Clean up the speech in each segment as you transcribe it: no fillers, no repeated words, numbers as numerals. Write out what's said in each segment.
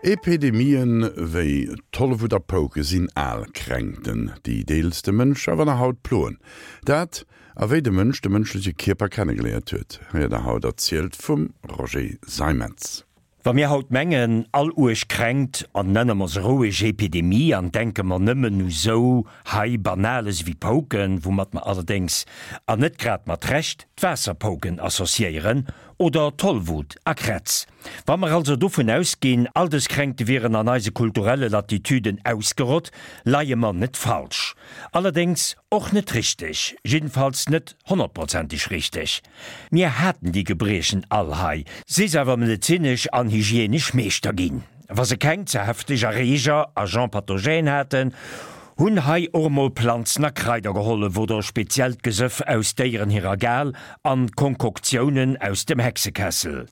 Epidemien wéi Tollwut a Pouke sinn al Kränkten, déi deels de Mënsch awer nach haut ploen. Dat, a wéi de Mënsch de mënschleche Kierper kennegeléiert huet, héiert der haut erzielt vum Roger Seimetz. Wa mir haut mengen, all uerg Kränkt, an nenne mer se roueg Epidemie an denke mer nëmmen u sou hei Banales ewéi Pouken, woumat mer allerdéngs, an net grad mat Recht, d'Waasserpouken associéieren, oder Tollwut a Krätz. Wa mer also dovun ausginn, all dës Kränkte wieren an eise kulturelle Latitüden ausgerott, leie mer net falsch. Allerdéngs och net richteg, jiddefalls net honnertprozenteg richteg. Mir haten déi Gebriechen all hei, si s'awer medezinesch an hygienesch Meeschter ginn. Wa se keng ze hefteg Erreeger, Agents pathogènes, haten, hunn hei och emol Planzen a Kraider gehollef oder speziellt Gesëff aus Déieren hirer Gal an Konkoktiounen aus dem Hexekessel.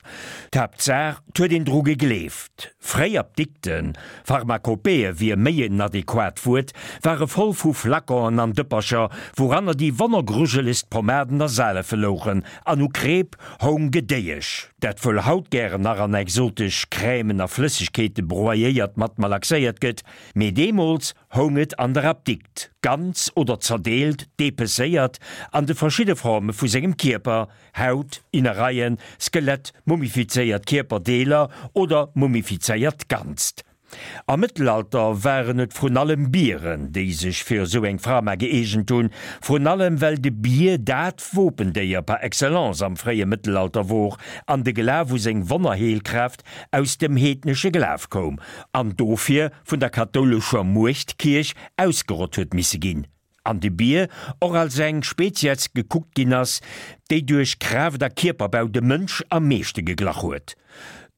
D'Haaptsaach, 't huet een dru gegleeft. Fréi Apdikten, Pharmakopéeë wier méi en adequat Wuert, ware voll vu Flaconen an Dëppercher, wouranner déi wonnergrujelegst Pomaden a Salefe louchen, an u Kreep houng Gedéiesch, dat wuel haut gären nach an exotesch Crèmen a Flëssegkeete broyéiert mat malaxéiert gëtt, mee deemools houng et an der Apdikt, ganz oder zerdeelt, depecéiert, an de verschidde Forme vu sengem Kierper, Haut, Innereien, Skelett, mumifizéiert Kierperdeeler oder mumifizéiert Ganzt. Am Mëttelalter waren et vrun allem Bieren, déi sech fir esou eng Frama gëeegent hunn, vrun allem well de Bier dat Wopendéier par excellence am fréie Mëttelalter wor an de Glaf u seng Wonnerheelkraaft aus dem heednesche Glaf koum an dofir vun der kathoulescher Muechtkierch ausgerott huet misse ginn. An de Bier och als eng Spezies gekuckt ginn ass, déi duerch Kraaft a Kierperbau dem Mënsch am meeschte geglach huet.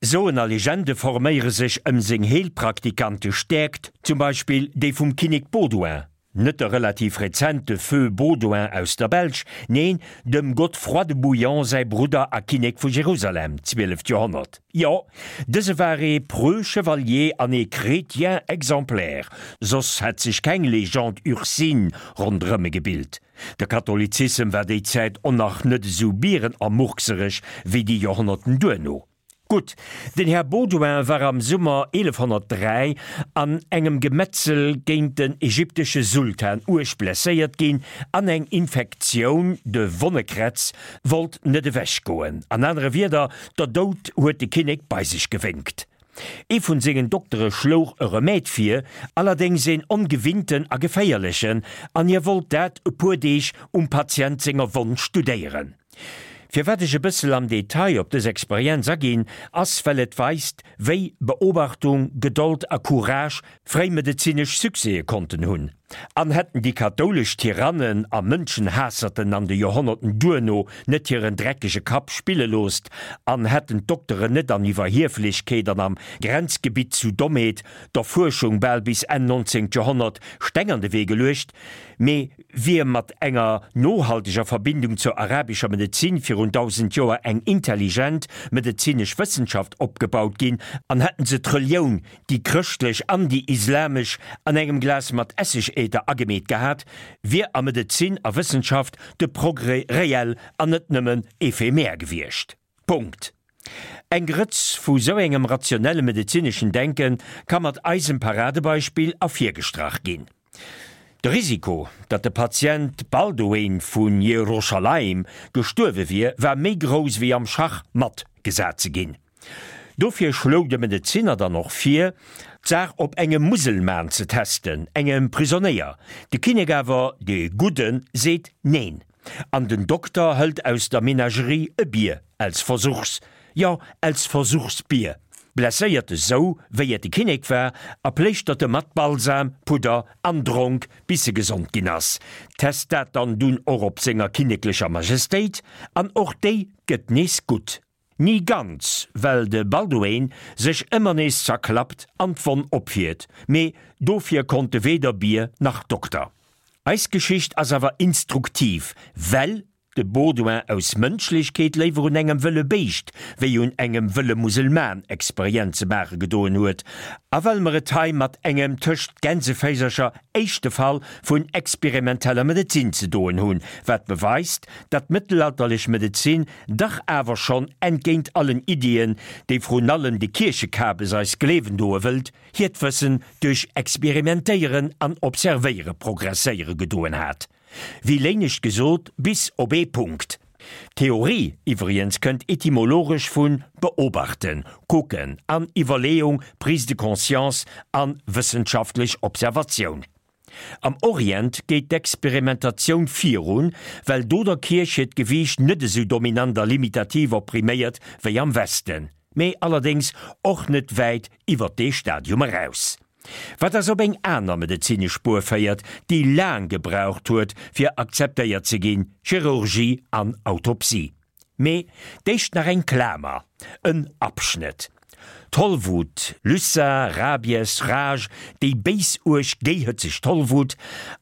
Soen a Legende forméiere sech ëm seng heelpraktikante Stäerkt, zum Beispill déi vum Kinnek Baudouin, net de relativ rezente Feu Baudouin aus der Belsch, neen, dem Godefroid de Bouillon säi Brudder a Kinnek vu Jerusalem, zwieleft Joerhonnert. Jo, dëse war ee preux Chevalier an ee Chrétien exemplaire, soss hätt sech keng Légende ursine ronderëm e gebilt. De Katholizissem war déi Zäit on nach net esou bierenamurksereg wéi déi Joerhonnerten duerno. Gutt, den Här Baudouin war am Summer 1103 an engem Gemetzel géint den ägyptesche Sultan uerg blesséiert ginn an eng Infektioun, de Wonnekrätz, wollt net ewech goen. An anere Wierder, der Doud huet de Kinnek bei sech gewénkt. Ee vun sengen Doktere schlouch e Remède vir, allerdéngs een ongewinnten a geféierlechen, an hie wollt dat e puer Deeg um Patient senger Wonn studéieren. Firwat ech e bëssel am Detail op dës Experienz aginn, ass well et weist, wéi Beobachtung, Gedold a Courage fréi medezinesch Succèse konnten hunn. An hätten déi kathoulesch Tyrannen a Mënschenhaasserten an de Joerhonnerten duerno net hiren dreckege Kapp spille loosst an hätten d'Dokteren net an Iwwerhieflechkeet an am Grenzgebitt zu Dommheet der Fuerschung bal bis Enn 19. Joerhonnert Steng an de Wee geluecht, mee wier mat enger nohalteger Verbindung zur arabescher Medezin virun 1000 Joer eng intelligent medezinesch Wëssenschaft opgebaut ginn an hätten se d'Relioun déi chrëschtlech an déi islamesch, an engem Glas mat Esseg-Äther agemeet gehat, wier a Medezin a Wëssenschaft de Progrès reell an net nëmmen éphémère gewiescht. Punkt. Eng Grëtz vu sou engem rationelle medezineschen Denke ka mat eisem Paradebeispill ervirgestrach ginn. De Risiko, datt de Patient Balduin vu Jeruschalaim gestuerwe wier, war méi grouss wéi am Schach matt gesat ze ginn. Dofir schloug de Medezinner dann och vir, d'Saach op engem Muselman ze testen, engem Prisonéier. De Kinnek awer, dee Gudden, seet neen. An den Dokter hëlt aus der Menagerie e Bier als Versuchs, jo, als Versuchsbier, blesséiert e sou, wéi et de Kinnek war, a pléischtert e mat Balsam, Pudder an Dronk, bis e gesond ginn ass. Test dat dann dunn och op senger kinneklecher Majestéit, an och déi gëtt nees gutt. Ni ganz, well de Balduin sech ëmmer nees zerklappt an d'Wonn opfiert, mee dofir konnt de weder Bier nach Dokter. Eis Geschicht ass awer instruktiv, well. De Baudouin aus Mënschlechkeet léiwer un engem wëlle Béischt wéi un engem wëlle Muselman Experienze maache gedoen huet, a well mer et hei mat engem tëscht Gänseféisercher éischte Fall vun experimenteller Medezin ze doen hunn, wat beweist, datt d'mëttelalterlech Medezin dach awer schonn, entgéint allen Iddien, déi vrun allem de Kierchekabes eis gleewen doe wëllt, hiert Wëssen duerch Experimentéieren an Observéiere progresséiere gedoen hat. Wéi léinescht gesot, bis op ee Punkt. Theorie iwwriens kënnt etymologesch vun beobachten, kucken an Iwwerleeung, Prise de conscience an wëssenschaftlech Observatioun. Am Orient geet d'Experimentatioun virun, well do der Kierch hiert Gewiicht net esou dominant a limitativ oppriméiert wéi am Westen, mee allerdéngs och net wäit iwwer dee Stadium eraus. Wat eis op eng aner medezinesch Spuer féiert, déi laang gebraucht huet, fir akzeptéiert ze ginn, Chirurgie an Autopsie. Mee d'éischt nach eng Klamer, en Abschnëtt. Tollwut, Lyssa, Rabies, Rage, déi béis-uerg géihëtzeg Tollwut,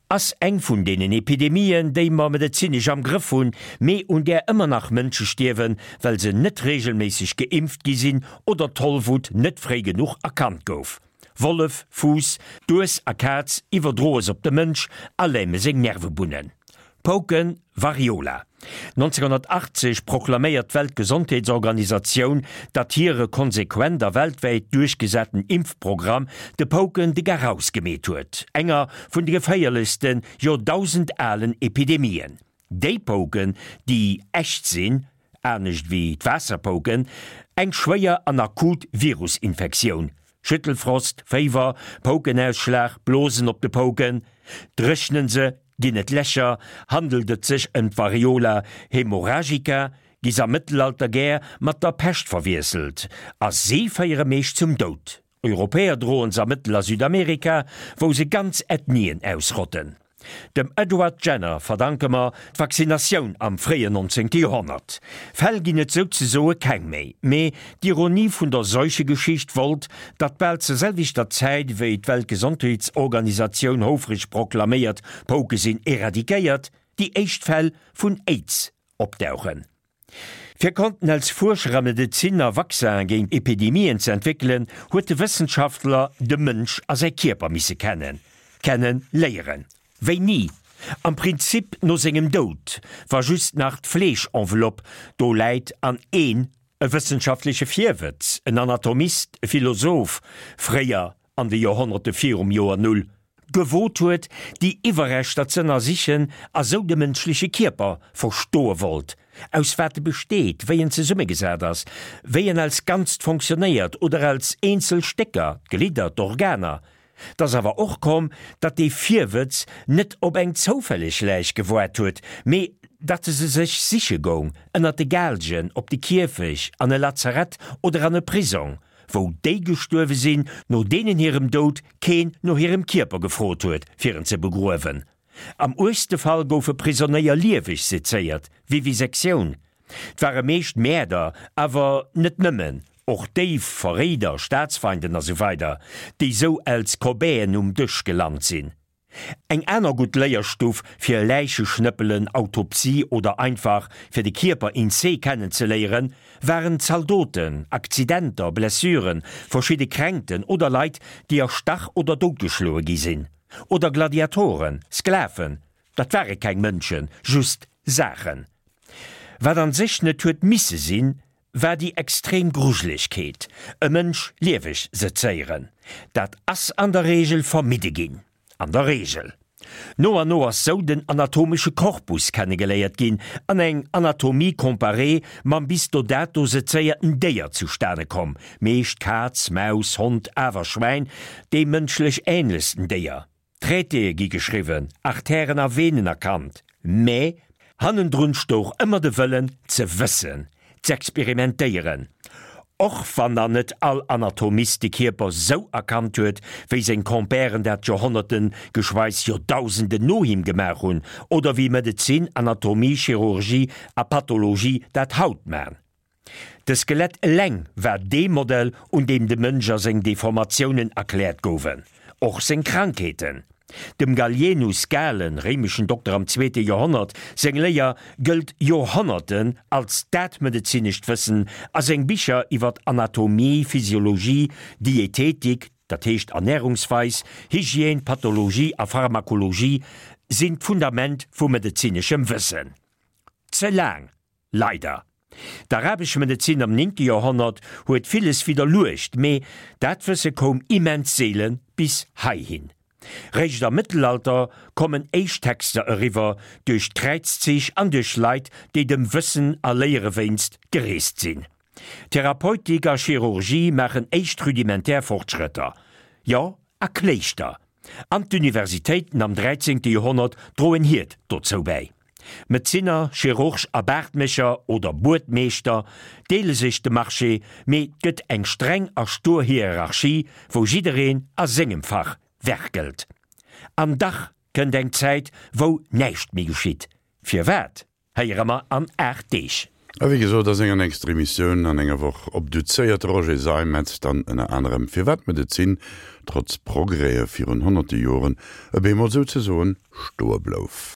ass eng vun deenen Epidemien, déi mer medezinesch am Grëff hunn, mee un där ëmmer nach Mënsche stierwen, well se net reegelméisseg geimpft gi sinn oder d'Tollwut net fréi genuch erkannt gouf. Wollef, Fuuss, Dues a Kaz iwwerdroe s'op de Mënsch a läme seng Nervebunnen. Pouken, Variola. 1980 proklaméiert d'Weltgesondheetsorganisatioun, datt hire konsequent a weltwäit duerchgesaten Impfprogramm de Pouken de Garaus gemeet huet, enger vun de geféierlechsten, joerdausendalen Epidemien. Déi Pouken, déi echt sinn, anescht wéi d'Waasserpouken, eng schwéier an akut Virusinfektioun, Schüttelfrost, Féiwer, Poukenausschlag, Blosen op de Pouken, dréchnen se, ginn et Lächer, handelt et sech ëm d'Variola haemorrhagica, gi s'am Mëttelalter gär mat der Pescht verwiesselt a si féiere meescht zum Doud. Europäer droen se a Mëttel a Südamerika, wou se ganz Ethnien ausrotten. Dem Edward Jenner verdanke mer d'Vaccinatioun am fréien 19. Joerhonnert. Fäll ginn et souzesoe keng méi, mee d'Ironie vun der Seuchegeschicht wollt, datt bal zur selwechter Zäit wéi d'Weltgesondheetsorganisatioun houfreg proklaméiert, Pouke sinn eradikéiert, déi éischt Fäll vun Aids opdauchen. Fir konnten als Fuerscher a Medeziner Vaccinen géint Epidemien ze entwéckelen, huet de Wëssenschaftler de Mënsch a säi Kierper misse kennen, kenne léieren. Wéini? Am Prinzip no sengem Doud, wa just nach d'Fleeschenveloppe do läit an een, e wëssenschaftleche Virwëtz, en Anatomist, e Philosoph, fréier an de Joerhonnerte virum Joer Null, gewot huet, déi Iwwerreschter z'ënnersichen a sou de mënschleche Kierper verstoe wollt, aus wat e besteet, wéi en zesummegesat ass, wéi en als Ganzt fonctionnéiert oder als eenzel Stécker, d'Glidder, d'Organer. 't ass awer och komm, datt dee Virwëtz net op eng zoufälleg Läich gewoart huet, mee datt e se sech siche goung, ënnert de Gaalgen, op de Kierfech, an e Lazarett oder an e Prisong. wou déi gestuerwe sinn, no deenen hirem Doud keen no hirem Kierper gefrot huet, fir en ze begruewen. Am uergste Fall goufe Prisonéier lieweg sezéiert, Vivisektioun. 't ware meescht Mäerder, awer net nëmmen, och Déif, Verréider, Staatsfeinden a sou weider, déi sou als Cobayen um Dësch gelant sinn. Eng aner gutt Léierstuff fir Läicheschnëppelen, Autopsie oder einfach fir de Kierper in se kennenzeléieren, waren Zaldoten, Akzidenter, Blessuren, verschidde Kränkten oder Leit, déi erstach oder doutgeschloe gi sinn. Oder Gladiatoren, Sklaven, dat ware keng Mënschen, just Saachen. Wat an sech net huet misse sinn, war déi extrem Grujelegkeet, e Mënsch lieweg sezéieren. Dat ass an der Reegel vermidde ginn. An der Reegel. No an no ass sou den anatomesche Korpus kennegeléiert ginn an eng Anatomie comparée mam bis do dato sezéierten Déier zustane komm, meescht Kaz, Maus, Hond, awer Schwäin, deem mënschlech änlechsten Déier. Traitéë gi geschriwwen, Artèren a Venen erkannt, mä hannendrun stouch ëmmer de Wëllen ze wëssen, z'experimentéieren. Och wann nach net all Anatomist de Kierper sou erkannt huet, wéi seng Compèren dat Joerhonnerten, geschweiss Joerdausenden no him gemaach hunn, oder wéi Medezin, Anatomie, Chirurgie a Pathologie dat haut man. De Skelett eleng war dee Modell, un deem de Mënsch a seng Deformatiounen erkläert gouwen, och seng Krankheeten. Dem Gallienus, Galen, réimeschen Dokter am zweete Joerhonnert, seng Léier gëllt Joerhonnerten als dat medezinescht Wëssen a seng Bicher iwwer Anatomie, Physiologie, Dietetik, dat heescht Ernärungsweis, Hygiène, Pathologie a Pharmakologie sinn d'Fundament vu medezineschem Wëssen. Ze laang Leider. D'arabesch Medezin am néngte Joerhonnert huet villes widderluecht, mee dat Wësse koum immens seele bis heihin. Réischt am Mëttelalter kommen éischt Texter eriwwer, duerch d'Kräizzich an duerch Leit, déi dem Wëssen a Léiere wéinst gereest sinn. Therapeutik a Chirurgie maachen éischt rudimentär Fortschrëtter. Jo, a Kléischter an d'Universitéiten am dräizéngte Joerhonnert droen hiert dozou bäi. Medezinner, Chirurg a Baartmécher oder Buedmeeschter deele sech de Marché, mee 't gëtt eng streng a stur Hierarchie, wou jiddereen a sengem Fach werkelt. An dach kënnt eng Zäit, wou näischt méi geschitt. Firwat? Héiere mer an 8 Deeg. A wéi gesot, a senger nächster Emissioun an enger Woch obduzéiert de Roger Seimetz dann ënner anerem, firwat d'Medezin, trotz Progrèse virun honnerte Joren, e bemol souzesoen stoe blouf.